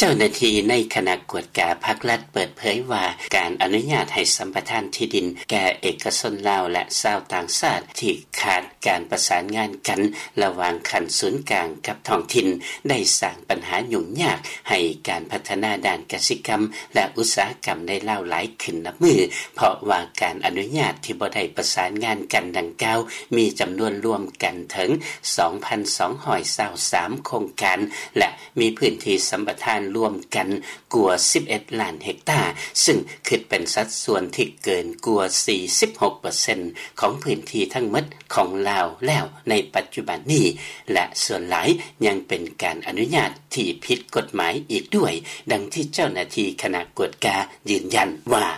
ເຈົ້າໜ້າທີ່ໃນຄະນະກວດກາພັກລັດເປີດເຜີຍວ່າ ການອະນຸຍາດໃຫ້ສຳປະທານທີ່ດິນແກ່ເອກະຊົນລາວ ແລະ ຊາວຕ່າງຊາດທີ່ຂາດການປະສານງານກັນລະຫວ່າງຂັ້ນສູນກາງກັບທ້ອງຖິ່ນ ໄດ້ສ້າງບັນຫາຫຍຸ້ງຍາກໃຫ້ການພັດທະນາດ້ານກະສິກຳ ແລະ ອຸດສາຫະກຳໃນລາວຫຼາຍຂຶ້ນນັບມື້ ເພາະວ່າການອະນຸຍາດທີ່ບໍ່ໄດ້ປະສານງານກັນດັ່ງກ່າວ ມີຈຳນວນລວມກັນເຖິງ ສອງພັນສອງຮ້ອຍຊາວສາມ ໂຄງການ ແລະ ມີພື້ນທີ່ສຳປະທານລວມກັນກວ່າ ສິບເອັດລ້ານເຮັກຕາ, ຊຶ່ງຄິດເປັນສັດສ່ວນທີ່ເກີນກວ່າ ສີ່ສິບຫົກເປີເຊັນ ຂອງພື້ນທີ່ທັງໝົດຂອງລາວແລ້ວໃນປັດຈຸບັນນີ້ ແລະ ສ່ວນຫຼາຍຍັງເປັນການອະນຸຍາດທີ່ຜິດກົດໝາຍອີກດ້ວຍ, ດັ່ງທີ່ເຈົ້າໜ້າທີ່ຄະນະກວດກາຢືນຢັນວ່າ: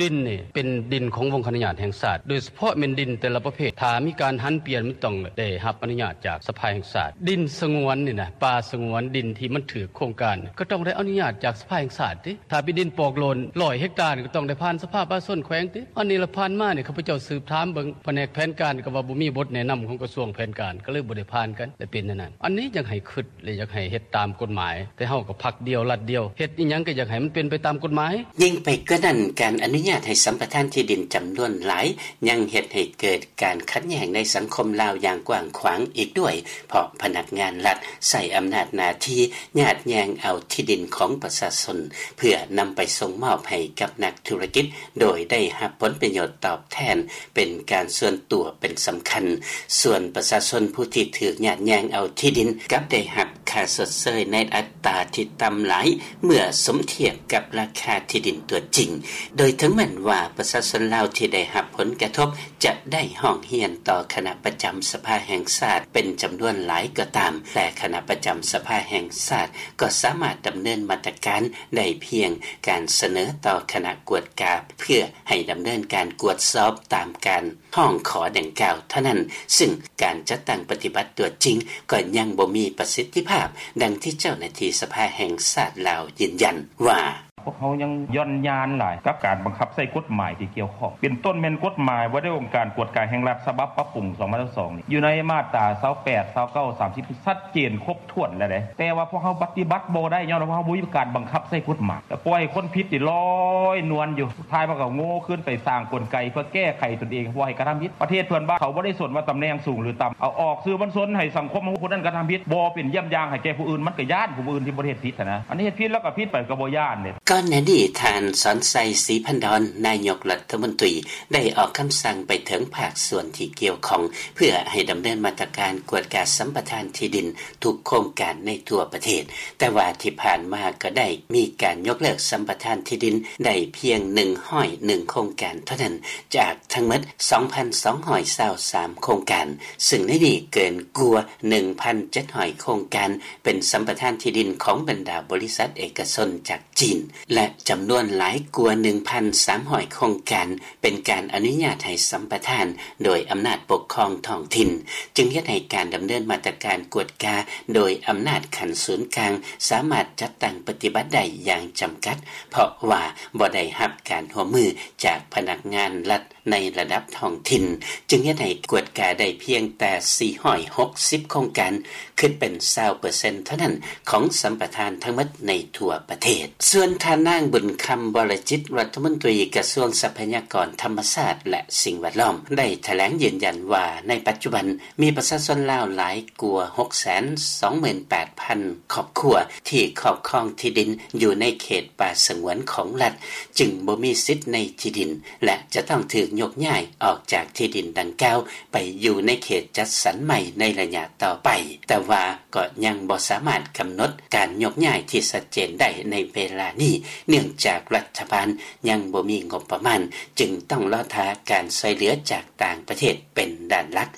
ດິນນີ້ເປັນດິນຂອງວົງຄະອະນຸຍາດແຫ່ງຊາດ, ໂດຍສະເພາະແມ່ນດິນແຕ່ລະປະເພດ ຖ້າມີການຫັນປ່ຽນ ມັນຕ້ອງໄດ້ຮັບອະນຸຍາດຈາກສະພາແຫ່ງຊາດ. ດິນສະຫງວນນີ້ນະ, ປ່າສະຫງວນ, ດິນທີ່ມັນຖືກໂຄງການ ກໍຕ້ອງໄດ້ອະນຸຍາດຈາກສະພາແຫ່ງຊາດຕິ. ຖ້າເປັນດິນປອກໂລນ ຮ້ອຍເຮັກຕາ ກໍຕ້ອງໄດ້ຜ່ານສະພາປະຊາຊົນແຂວງຕິ. ອັນນີ້ລະ ຜ່ານມານີ້ ຂ້າພະເຈົ້າສືບຖາມເບິ່ງພະແນກແຜນການ ກໍວ່າບໍ່ມີບົດແນະນຳຂອງກະຊວງແຜນການ ກໍເລີຍບໍ່ໄດ້ຜ່ານກັນ ແລະ ເປັນແນວນັ້ນ. ອັນນີ້ຢາກໃຫ້ຄິດ ແລະ ຢາກໃຫ້ເຮັດຕາມກົດໝາຍ, ແຕ່ເຮົາກໍພັກດຽວລັດດຽວ, ເຮັດອີ່ຫຍັງກໍຢາກໃຫ້ມັນເປັນໄປຕາມກົດໝາຍ. ຍິ່ງໄປກວ່ານັ້ນ, ການອະນຸຍາດໃຫ້ສຳປະທານທີ່ດິນຈຳນວນຫຼາຍ ຍັງເຮັດໃຫ້ເກີດການຂັດແຍ່ງໃນສັງຄົມລາວຢ່າງກວ້າງຂວາງອີກດ້ວຍ, ເພາະພະນັກງານລັດໃຊ້ອຳນາດໜ້າທີ່ຍາດແຍ່ງເອົາທີ່ດິນຂອງປະຊາຊົນ ເພື່ອນຳໄປສົ່ງມອບໃຫ້ກັບນັກທຸລະກິດ ໂດຍໄດ້ຮັບຜົນປະໂຫຍດຕອບແທນເປັນການສ່ວນຕົວເປັນສຳຄັນ. ສ່ວນປະຊາຊົນຜູ້ທີ່ຖືກຍາດແຍ່ງເອົາທີ່ດິນ ກັບໄດ້ຮັບຄ່າຊົດເຊີຍໃນອັດຕາທີ່ຕ່ຳຫຼາຍ ເມື່ອສົມທຽບກັບລາຄາທີ່ດິນຕົວຈິງ. ໂດຍເຖິງແມ່ນວ່າປະຊາຊົນລາວທີ່ໄດ້ຮັບຜົນກະທົບ ຈະໄດ້ຮ້ອງຮຽນຕໍ່ຄະນະປະຈຳສະພາແຫ່ງຊາດເປັນຈຳນວນຫຼາຍກໍຕາມ, ແຕ່ຄະນະປະຈຳສະພາແຫ່ງຊາດກໍສາມາດດຳເນີນມາດຕະການໄດ້ພຽງການສະເໜີຕໍ່ຄະນະກວດກາ ເພື່ອໃຫ້ດຳເນີນການກວດສອບຕາມການຮ້ອງຂໍດັ່ງກ່າວເທົ່ານັ້ນ, ຊຶ່ງການຈັດຕັ້ງປະຕິບັດຕົວຈິງກໍຍັງບໍ່ມີປະສິດທິພາບ, ດັ່ງທີ່ເຈົ້າໜ້າທີ່ສະພາແຫ່ງຊາດລາວຢືນຢັນວ່າ: ພວກເຮົາຍັງຢ່ອນຍານຫຼາຍກັບການບັງຄັບໃຊ້ກົດໝາຍທີ່ກ່ຽວຂ້ອງ ເປັນຕົ້ນແມ່ນກົດໝາຍວ່າດ້ວຍອົງການກວດກາແຫ່ງລັດ ສະບັບປັບປຸງ ສອງພັນຊາວສອງນີ້ ຢູ່ໃນມາດຕາ ຊາວແປດ ຊາວເກົ້າ ສາມສິບ ຊັດເຈນຄົບຖ້ວນແລ້ວເດ້ ແຕ່ວ່າພວກເຮົາປະຕິບັດບໍ່ໄດ້ ຍ້ອນວ່າເຮົາບໍ່ມີການບັງຄັບໃຊ້ກົດໝາຍ ແລ້ວປ່ອຍໃຫ້ຄົນຜິດນີ້ລອຍນວນຢູ່ ສຸດທ້າຍມັນກໍໂງ່ຄືນໄປສ້າງກົນໄກເພື່ອແກ້ໄຂຕົນເອງ ບໍ່ໃຫ້ກະທຳຜິດ. ປະເທດເພິ່ນວ່າເຂົາບໍ່ໄດ້ສົນວ່າຕຳແໜ່ງສູງຫຼືຕ່ຳ ເອົາອອກສື່ມວນຊົນໃຫ້ສັງຄົມຮູ້ຜູ້ນັ້ນກະທຳຜິດ ບໍ່ເປັນຢ້ຽມຢ່າງໃຫ້ແກ່ຜູ້ອື່ນ ມັນກໍຢ້ານຜູ້ອື່ນທີ່ບໍ່ໄດ້ເຮັດຜິດຫັ້ນນະ ອັນນີ້ເຮັດຜິດແລ້ວກໍຜິດໄປກໍບໍ່ຢ້ານເດ້. ກ່ອນໜ້ານີ້ ທ່ານ ສອນໄຊ ສີພັນດອນ ນາຍົກລັດຖະມົນຕີ ໄດ້ອອກຄຳສັ່ງໄປເຖິງພາກສ່ວນທີ່ກ່ຽວຂ້ອງ ເພື່ອໃຫ້ດຳເນີນມາດຕະການກວດກາສຳປະທານທີ່ດິນທຸກໂຄງການໃນທົ່ວປະເທດ, ແຕ່ວ່າທີ່ຜ່ານມາກໍໄດ້ມີການຍົກເລີກສຳປະທານທີ່ດິນໄດ້ພຽງໜຶ່ງຮ້ອຍເອັດໂຄງການເທົ່ານັ້ນ ຈາກທັງໝົດ ສອງພັນສອງຮ້ອຍຊາວສາມໂຄງການ, ຊຶ່ງໃນນີ້ເກີນກວ່າໜຶ່ງພັນເຈັດຮ້ອຍໂຄງການ ເປັນສຳປະທານທີ່ດິນຂອງບັນດາບໍລິສັດເອກະຊົນຈາກຈີນ ແລະ ຈຳນວນຫຼາຍກວ່າໜຶ່ງພັນສາມຮ້ອຍໂຄງການ ເປັນການອະນຸຍາດໃຫ້ສຳປະທານໂດຍອຳນາດປົກຄອງທ້ອງຖິ່ນ, ຈຶ່ງເຮັດໃຫ້ການດຳເນີນມາດຕະການກວດກາໂດຍອຳນາດຂັ້ນສູນກາງ ສາມາດຈັດຕັ້ງປະຕິບັດໄດ້ຢ່າງຈຳກັດ ເພາະວ່າບໍ່ໄດ້ຮັບການຮ່ວມມືຈາກພະນັກງານລັດ ໃນລະດັບທ້ອງຖິ່ນ, ຈຶ່ງເຮັດໃຫ້ກວດກາໄດ້ພຽງແຕ່ສີ່ຮ້ອຍຫົກສິບໂຄງການ, ຄິດເປັນຊາວເປີເຊັນເທົ່ານັ້ນຂອງສຳປະທານທັງໝົດໃນທົ່ວປະເທດ. ສ່ວນທ່ານນາງ ບຸນຄຳ ວໍລະຈິດ ລັດຖະມົນຕີກະຊວງຊັບພະຍາກອນທຳມະຊາດ ແລະ ສິ່ງແວດລ້ອມ ໄດ້ຖະແຫຼງຢືນຢັນວ່າ ໃນປັດຈຸບັນມີປະຊາຊົນລາວຫຼາຍກວ່າຫົກແສນສອງໝື່ນແປດພັນຄອບຄົວ ທີ່ຄອບຄອງທີ່ດິນຢູ່ໃນເຂດປ່າສະຫງວນຂອງລັດ, ຈຶ່ງບໍ່ມີສິດໃນທີ່ດິນ ແລະ ຈະຕ້ອງຖືກຍົກຍ້າຍອອກຈາກທີ່ດິນດັ່ງກ່າວໄປຢູ່ໃນເຂດຈັດສັນໃໝ່ໃນໄລຍະຕໍ່ໄປ, ແຕ່ວ່າກໍຍັງບໍ່ສາມາດກຳນົດການຍົກຍ້າຍທີ່ຊັດເຈນໄດ້ໃນເວລານີ້, ເນື່ອງຈາກລັດຖະບານຍັງບໍ່ມີງົບປະມານ, ຈຶ່ງຕ້ອງລໍຖ້າການຊ່ວຍເຫຼືອຈາກຕ່າງປະເທດເປັນດ້ານຫຼັກ,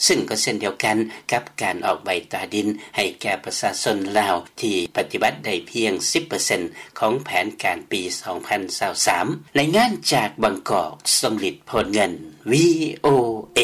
ຊຶ່ງກໍເຊັ່ນດຽວກັນກັບການອອກໃບຕາດິນໃຫ້ແກ່ປະຊາຊົນລາວທີ່ປະຕິບັດໄດ້ພຽງສິບເປີເຊັນ ຂອງແຜນການປີສອງພັນຊາວສາມ. ລາຍງານຈາກບາງກອກ, ສົມລິດ ໂພນເງິນ, ວີໂອເອ.